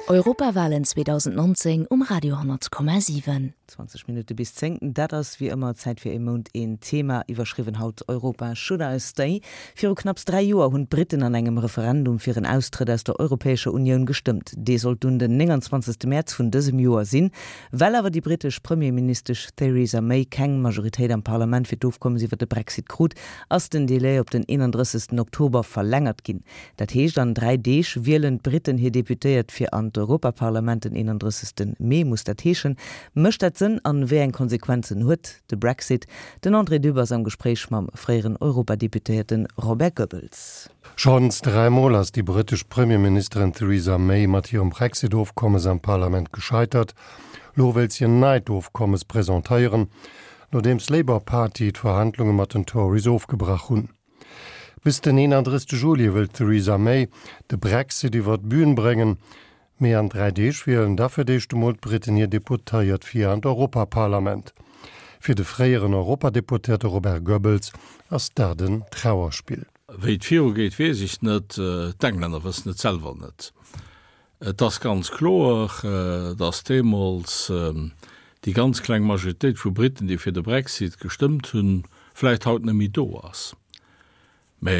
Europawalen 2019 um Radio 10,7. 20 Minutte bis 10, dat ass wéi ëmmer Zäit fir ee Mount een Thema, iwwerschriwwen haut Europa should I stay? Viru knapps 3 Joer hunn d'Britten an engem Referendum fir en Austrëtt aus der Europäescher Unioun gestëmmt. Dee sollt dunn den 29 Mäerz vun dësem Joer sinn. Well awer déi brittesch Premierministesch Theresa May keng Majoritéit am Parlament fir d'Ofkommes iwwer de Brexit krut, ass den Delai op den 31 Oktober verlängert ginn. Dat heescht, an 3 Deeg wielen d'Britten hir Deputéiert fir an d'Europaparlament, den 31 Mee muss dat heeschen. Mécht dat Sënn an wéi eng Konsequenzen huet de Brexit? Den André Dübb ass am Gespréich mam fréieren Europadeputéierte Robert Goebbels. Schonns dräimol ass déi britesch Premierministerin Theresa May mat hirem Brexit-Ofkommes am Parlament gescheitert. Lo wéilt si en neit Ofkommes presentéieren, nodeems d'Labour Party d'Verhandlunge mat den Tories ofgebrach hunn. Bis den 31 Juli wëll d'Theresa May de Brexit iwwer d'Bün bréngen. Mee an 3 Deeg wielen da fir d'éischt emol d'Briten hir Deputéiert fir an d'Europaparlament. Fir de fréieren Europadeputéierte Robert Goebbels ass dat en Trauerspill. Wéi et virugeet, weess ech net. D'Englänner wëssen et selwer net. Et ass ganz kloer, datt deemools déi ganz kleng Majoritéit vu Briten, déi fir de Brexit gestëmmt hunn, vläicht haut net méi do ass. Mä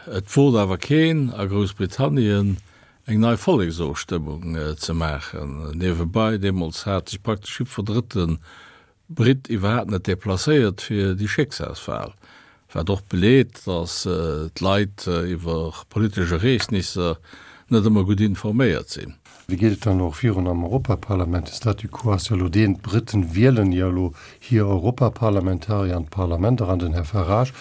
et wot awer keen a Groussbritannien eng nei Volleksofstëmmung ze maachen. Niewebei, deemools hat sech praktesch jiddwer drëtte Britt iwwerhaapt net deplacéiert fir déi Schécksalswal, wat och beleet, datt d'Leit iwwer politesch Ereegnisser net ëmmer gutt informéiert sinn. Wéi geet et dann elo och virun am Europaparlament? De Statu quo ass jo elo deen, d'Britten wielen jo elo hir Europaparlamentarier an d'Parlament eran. Den Här Farage,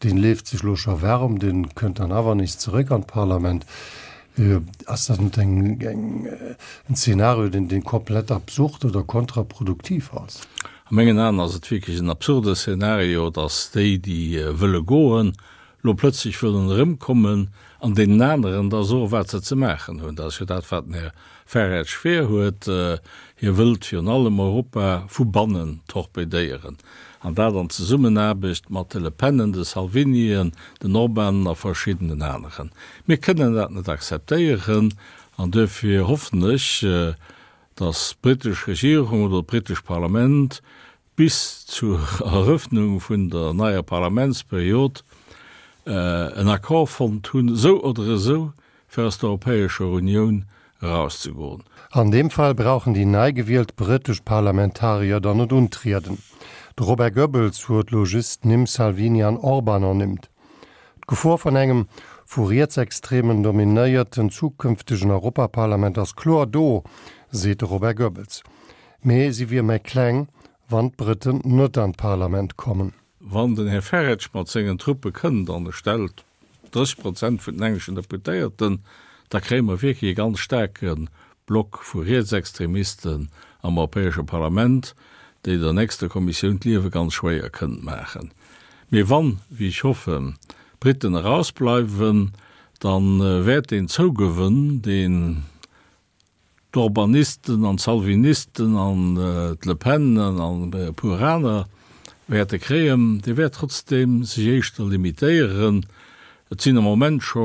dee leeft sech elo scho waarem, dee kënnt dann awer nees zeréck an d'Parlament. Ass dat net eng, en Zeenario, deen, deen komplett absurd oder kontraproduktiv ass? A mengen Aen ass et wierklech en absurde Szenario, datt déi, déi wëlle goen, lo plötzlech wëllen erëmkommen an deenen aneren da soen, wat se ze maachen hunn. Dat ass jo dat, wat den Här Farage vir huet. Hie wëllt virun allem Europa vu bannen torpedéieren, an dat an Zesummenaarbecht mat de Le Penen, de Salvinien, den Orbanen a verschiddenen aneren. Mir kënnen dat net akzeptéieren an duerfir hoffen ech, datt d'britesch Regierung oder d'britescht Parlament bis zur Erëffnung vun der neier Parlamentsperiod en Accord fonnt hunn, esou oder esou, fir aus der Europäescher Unioun erauszegoen. An deem Fall brauchen déi nei gewielt brëtesch Parlamentarier dann net untrieden. De Robert Goebbels huet lo just d'Nimm Salvini an Orban ernimmt. D'Gefor vun engem vu Rietsextremen dominéierten zukünftegen Europaparlament ass kloer do, seet de Robert Goebbels. Mee si wier méi kleng, wann d'Brëtten net an d'Parlament kommen. Wann den Här Farage mat sengen Truppe kënnt an e stellt 30 Prozent vun den engleschen Deputéierten, da kréie mer wierklech e ganz staarke Block vu Rietsextremisten am Europäesche Parlament, déi der nächster Kommissioun d'Liewe ganz schwéier kënnen maachen. Mee wann, wéi ech hoffen, d'Briten erausbleiwen, da wäert deen Zougewënn, deen D'Orbanisten an d'Salvinisten an d'Le Penen an e puer aner wäerte kréien, dee wäert trotzdeem sech éischter limitéieren. Et sinn am Moment scho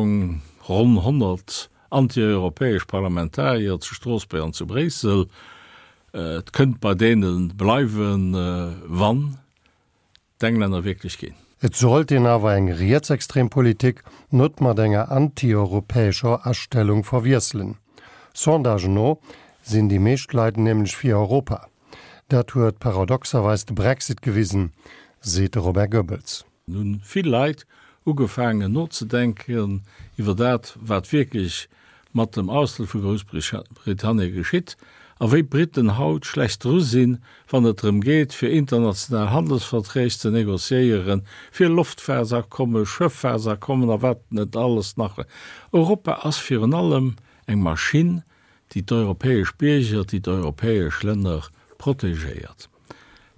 ronn 100 antieuropäesch Parlamentarier zu Stroossbuerg an zu Bréissel. Et kënnt bei deene bleiwen, wann d'Englänner wierklech ginn. Et sollt een awer eng rietsextrem Politik net mat enger antieuropäescher Astellung verwiesselen. Sondagen no sinn déi meescht Leit nämlech fir Europa. Dat huet paradoxerweis de Brexit gewisen, seet de Robert Goebbels. Hunn vill Leit ugefaangen nozedenken iwwer dat, wat wierklech mat dem Austrëtt vu Groussbritannien geschitt a wéi d'Briten haut schlecht dru sinn, wann et drëm geet, fir international Handelsverträg ze négociéieren, fir Loftfahrtsabkommen, Schëffahrtsabkommen a wat net alles nach. Europa ass virun allem eng Maschinn, déi d'europäesch Bierger, déi d'europäesch Länner protegéiert.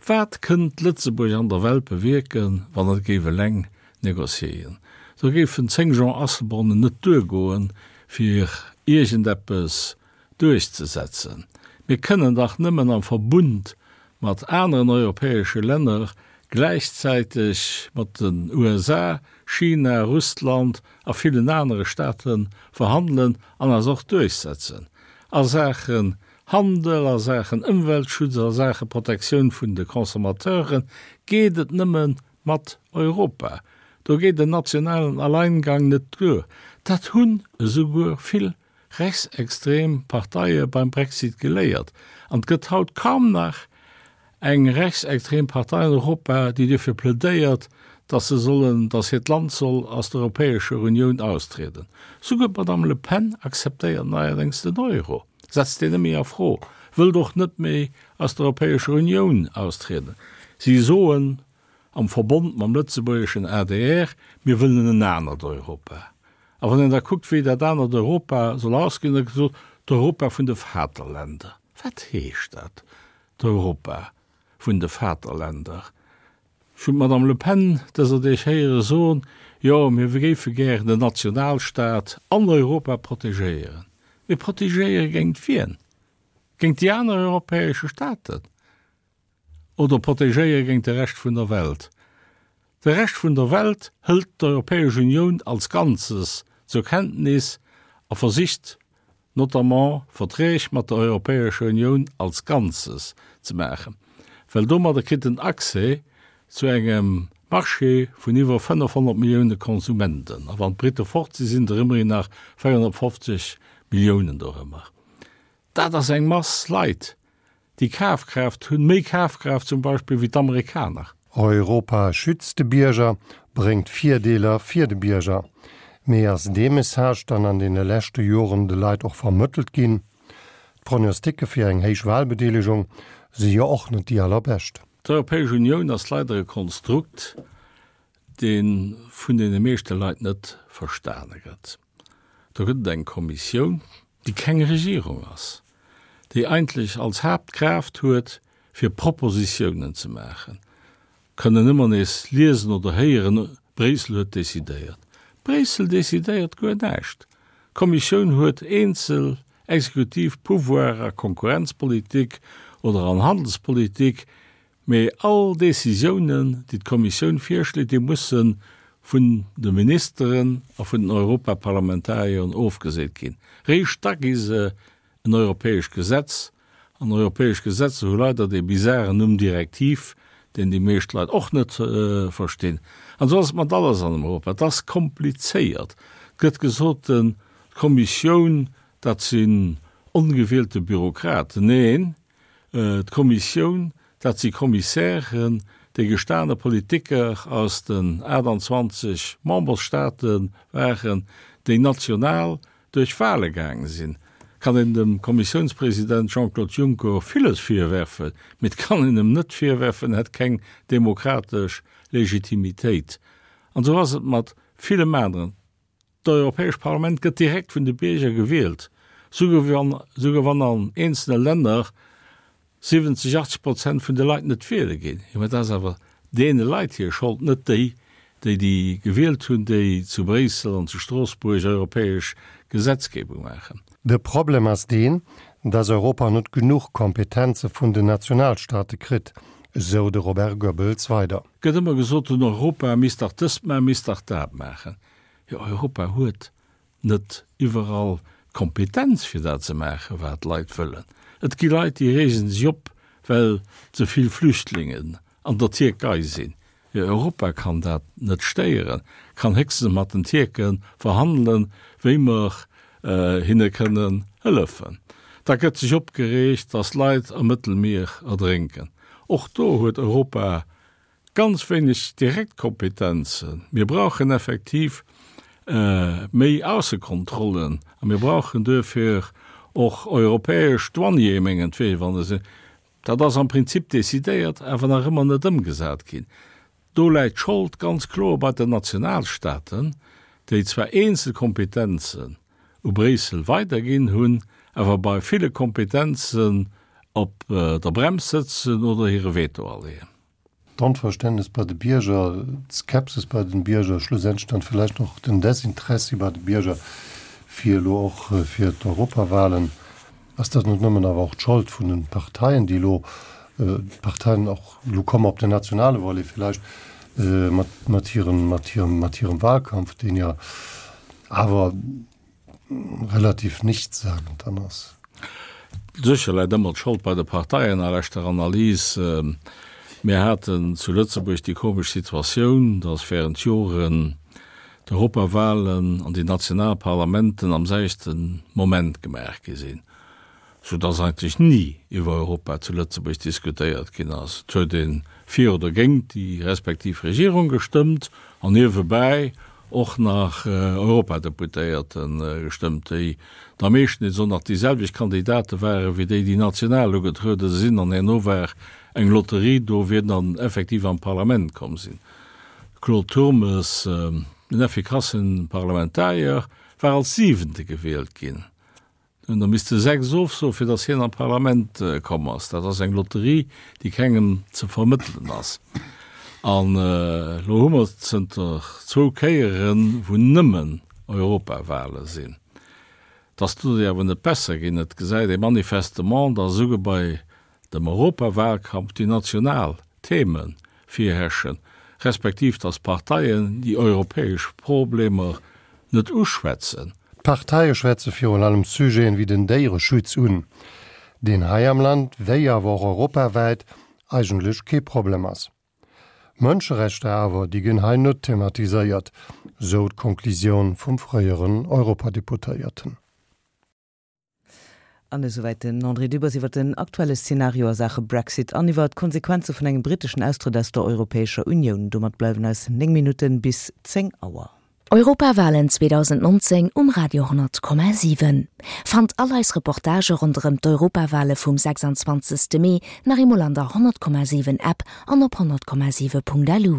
Wat kënnt Lëtzebuerg an der Welt bewierken, wann et géif eleng négociéien? Do géifen 10 Jean Asselbornen net duergoen, fir iergendeppes duerchzesetzen. Mir kënnen dach nëmmen am Verbund mat aneren europäesche Länner, gläichzäiteg mat den USA, China, Russland a villen anere Staate verhandelen an eis och duerchsetzen. A Saachen Handel, a Saachen Ëmweltschutz, a Saache Protektioun vun de Consommateuren geet et nëmme mat Europa. Do geet en nationalen Alleingang net duer. Dat hunn esouguer vill rechtsextrem Parteie beim Brexit geléiert. An et gëtt haut kaum nach eng rechtsextrem Partei an Europa, déi duerfir plädéiert, dass se sollen, dass hiert Land soll aus der Europäescher Unioun austrieden. Souguer d'Madame Le Pen akzeptéiert neierdéngs den Euro, setzt deen net méi a Fro, wëllt och net méi aus der Europäescher Unioun austrieden. Si soen am Verbond mam lëtzebuergeschen adr, mir wëllen en anert Europa. A wann een da kuckt, wéi dat anert Europa soll ausgesinn, da gëtt gesot, d'Europa vun de Vaterländer. Wat heescht dat, d'Europa vun de Vaterländer? Ech hunn d'Madame Le Pen dëser Deeg héiere soen, jo, mir géife gären den Nationalstaat an Europa protegéieren. Mee protegéiere géint wien? Géint déi aner europäesche Staaten? Oder protegéiere géint de Rescht vun der Welt? De Rescht vun der Welt hëlt d'Europäesch Unioun als Ganzes zur Kenntnis a versicht notamment Verträg mat der Europäescher Unioun als Ganzes ze maachen, well domadder kritt en Accès zu engem Marché vun iwwer 500 Millioune Konsumenten. A wann d'Britte fort sinn, sinn der ëmmerhin nach 450 Milliounen dorëmmer. Dat ass eng Mass Leit, déi Kafkraaft hunn, méi Kafkraaft zum Beispill wéi d'Amerikaner. Europa schützt de Bierger, bréngt Virdeeler fir de Bierger. Mee ass dee Message dann an deene leschte Joren de Leit och vermëttelt ginn? D'Prognosticke fir eng héich Wahlbedeelegung si jo och net déi allerbescht. D'Europäesch Unioun ass leider e Konstrukt, dee vun deene meeschte Leit net verstane gëtt. Do gëtt et eng Kommissioun, déi keng Regierung ass, déi eigentlech als Haaptkraaft huet, fir Propositiounen ze maachen. Kënnen ëmmer nees liesen oder héieren, Bréissel huet decidéiert. Bréissel decidéiert guer näischt. D'Kommissioun huet eenzel exekutiv Pouvoiren a Konkurrenzpolitik oder an Handelspolitik, Mee all Décisiounen, déi d'Kommissioun virschléit, déi musse vun de Ministeren a vun den Europaparlamentarieren ofgeseent ginn. Réischt da gi se en europäescht Gesetz. An europäesch Gesetzer hu leider dee bizaren Numm Direktiv, deen déi meescht Leit och net verstinn. An esou ass et mat alles an Europa. Et ass komplizéiert. Et gëtt gesot, d'Kommissioun, dat sinn ongewielte Bürokraten. Neen, D'Kommissioun, dat si Kommissären, déi gestane Politiker aus den 28 Memberstaate waren, déi national duerch Wahle gaange sinn. Kann een dem Kommissiounspresident Jean-Claude Juncker villes virwerfen, mee et kann een em net virwerfen, en hätt keng demokratesch Legitimitéit. An esou ass et mat villem aneren. D'Europäescht Parlament gëtt direkt vun de Bierger gewielt, souguer wann, souguer wann an eenzele Länner 70, 80 Prozent vun de Leit net wiele ginn. Jo, mä dat ass awer deene Leit hir Schold, net déi, déi déi gewielt hunn, déi zu Bréissel an zu Stroossbuerg europäesch Gesetzgebung maachen. De Problem ass deen, dass Europa net genuch Kompetenze vun den Nationalstaate kritt, esou de Robert Goebbels weider. Gëtt ëmmer gesot, den Europa misst dach dëst maachen, misst dach dat maachen. Jo, Europa huet net iwwerall d'Kompetenz fir dat ze maachen, wat d'Leit wëllen. Et gi Leit, déi reegen sech op, well ze vill Flüchtlingen an der Tierkei sinn. Jo, Europa kann dat net stéieren, kann héchstens mat den Tierke verhandelen, wéi mer hinne kënnen hëllefen. Da gëtt sech opgereegt, datt Leit am Mëttelmier erdrénken. Och do huet Europa Ganz wéineg direkt Kompetenzen. Mir brauchen effektiv méi Aussekontrollen a mir brauchen duerfir och europäesch Douaniere mengetwee, wann se, dat ass am Prinzip decidéiert, awer nach ëmmer net ëmgesat ginn. Do läit d'Schold ganz kloer bei den Nationalstaten, déi zwar eenzel Kompetenzen u Bréissel weiderginn hunn, awer bei ville Kompetenzen op der Brems sëtzen oder hire Veto aleeën. D'Onverständnes bei de Bierger, d'Skepsis bei den Bierger, schlussendlech dann villäicht och den Desinteressi bei de Bierger fir elo och fir d'Europawahlen. Ass dat net nëmmen awer och d'Schold vun den Parteien, déi elo, d'Parteien och, elo komme mer op den nationale Volet villäicht, mat, mat hirem, mat hirem, mat hirem Wahlkampf, deen jo awer relativ nichtssagend dann ass? Sécher läit ëmmer d'Schold bei de Parteien a leschter Analys. Mir haten zu Lëtzebuerg déi komesch Situatioun, datt während Joren d'Europawahlen an déi national Parlamenten am selwechte Moment gemaach gi sinn, sou datt eigentlech ni iwwer Europa zu Lëtzebuerg diskutéiert ginn ass. Et huet ee fir oder géint déi respektiv Regierung gestëmmt an niewebäi och nach Europadeputéierte gestëmmt, déi da meeschtens och nach déi selwecht Kandidate ware wéi déi, déi national ugetruede sinn, an herno war eng Lotterie do, wien dann effektiv an d'Parlament komm sinn. Claude Turmes, en effikasse Parlamentarier, war als Siwente gewielt ginn. Do hunn der misste 6 ofsoen, fir datt hien an d'Parlament komm ass. Dat ass eng Lotterie, déi kengem ze vermëttelen ass. An elo hu mer zënter zwou Kéieren, wou nëmmen Europawale sinn. Et ass doduerch awer net besser ginn. Et gesäit ee manifestement, datt esouguer bei dem Europawalkampf déi national Theme virherrschen, respektiv datt d'Parteien déi europäesch Problemer net uschwätzen. D'Parteie schwätze virun allem Sujeten wéi den Déiereschutz un, deen hei am Land, wéi awer och europawäit, eigentlech kee Problem ass. Mënscherechter awer, déi ginn hei net thematiséiert, sou d'Konklusioun vum fréieren Europadeputéierten. An esouwäit den André Dübbers iwwer den aktuelle Szenario a Saache Brexit an iwwer d'Konsequenze vun engem britteschen Austrëtt aus der Europäescher Unioun. Domat bleiwen eis 9 Minutte bis 10 Auer. Europawalen 2019 um Radio 10,7. Fannt all eis Reportagë ronderëm d'Europawale vum 26. Mee nach eemol an der 100,7 App an op 100,7.lu.